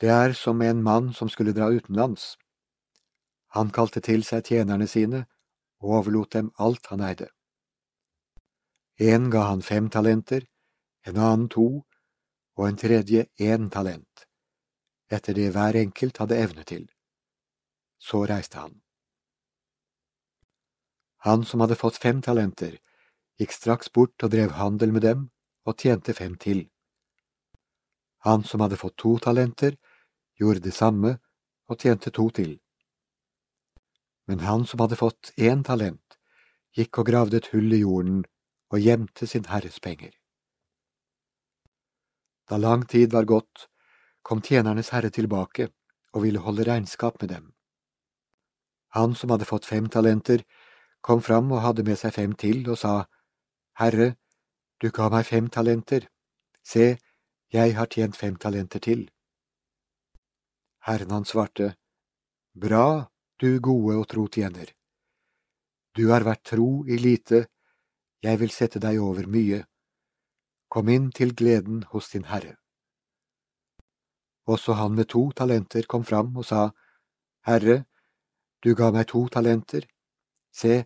Det som en mann som skulle dra utenlands. Han kalte til seg tjenerne sine og overlot dem alt han eide. En ga han 5 talenter, en annen 2, og en tredje 1 talent, etter det hver enkelt hadde evne til. Så reiste han. Han som hadde fått 5 talenter, gikk straks bort og drev handel med dem og tjente 5 til. Han som hadde fått 2 talenter, gjorde det samme og tjente 2 til. Men han som hadde fått 1 talent, gikk og gravde et hull i jorden og gjemte sin herres penger. Da lang tid var gått, kom tjenernes herre tilbake og ville holde regnskap med dem. Han som hadde fått 5 talenter, kom fram og hadde med seg 5 til og sa, «Herre, du ga meg 5 talenter. Se, jeg har tjent 5 talenter til.» Herren han svarte, «Bra, du gode og tro tjener. Du har vært tro i lite, jeg vil sette deg over mye. Kom inn til gleden hos din herre.» Også han med 2 talenter kom fram og sa, «Herre, du ga meg 2 talenter. Se,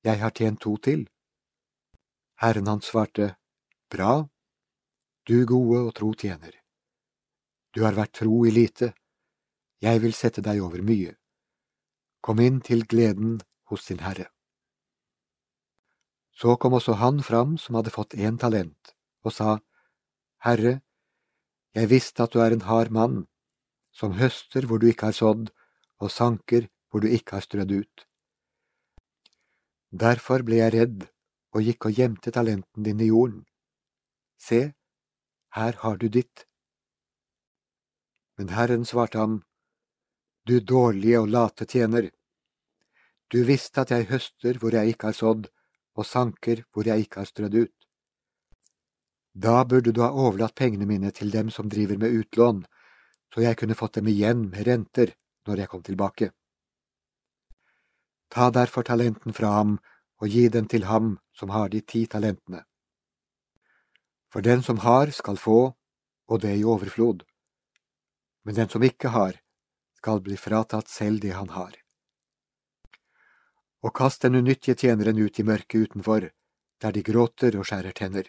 jeg har tjent 2 til.» Herren han svarte, «Bra, du gode og tro tjener. Du har vært tro i lite, jeg vil sette deg over mye. Kom inn til gleden hos din herre.» Så kom også han fram som hadde fått 1 talent, og sa, «Herre, jeg visste at du er en hard mann, som høster hvor du ikke har sådd, og sanker hvor du ikke har strødd ut. Derfor ble jeg redd og gikk og gjemte talenten din i jorden. Se, her har du ditt.» Men Herren svarte ham, «Du dårlige og late tjener. Du visste at jeg høster hvor jeg ikke har sådd, og sanker hvor jeg ikke har strødd ut. Da burde du ha overlatt pengene mine til dem som driver med utlån, så jeg kunne fått dem igjen med renter når jeg kom tilbake. Ta derfor talenten fra ham og gi den til ham som har de 10 talentene. For den som har skal få, og det i overflod. Men den som ikke har, skal bli fratatt selv det han har. Og kast den unyttige tjeneren ut i mørket utenfor, der de gråter og skjærer tenner.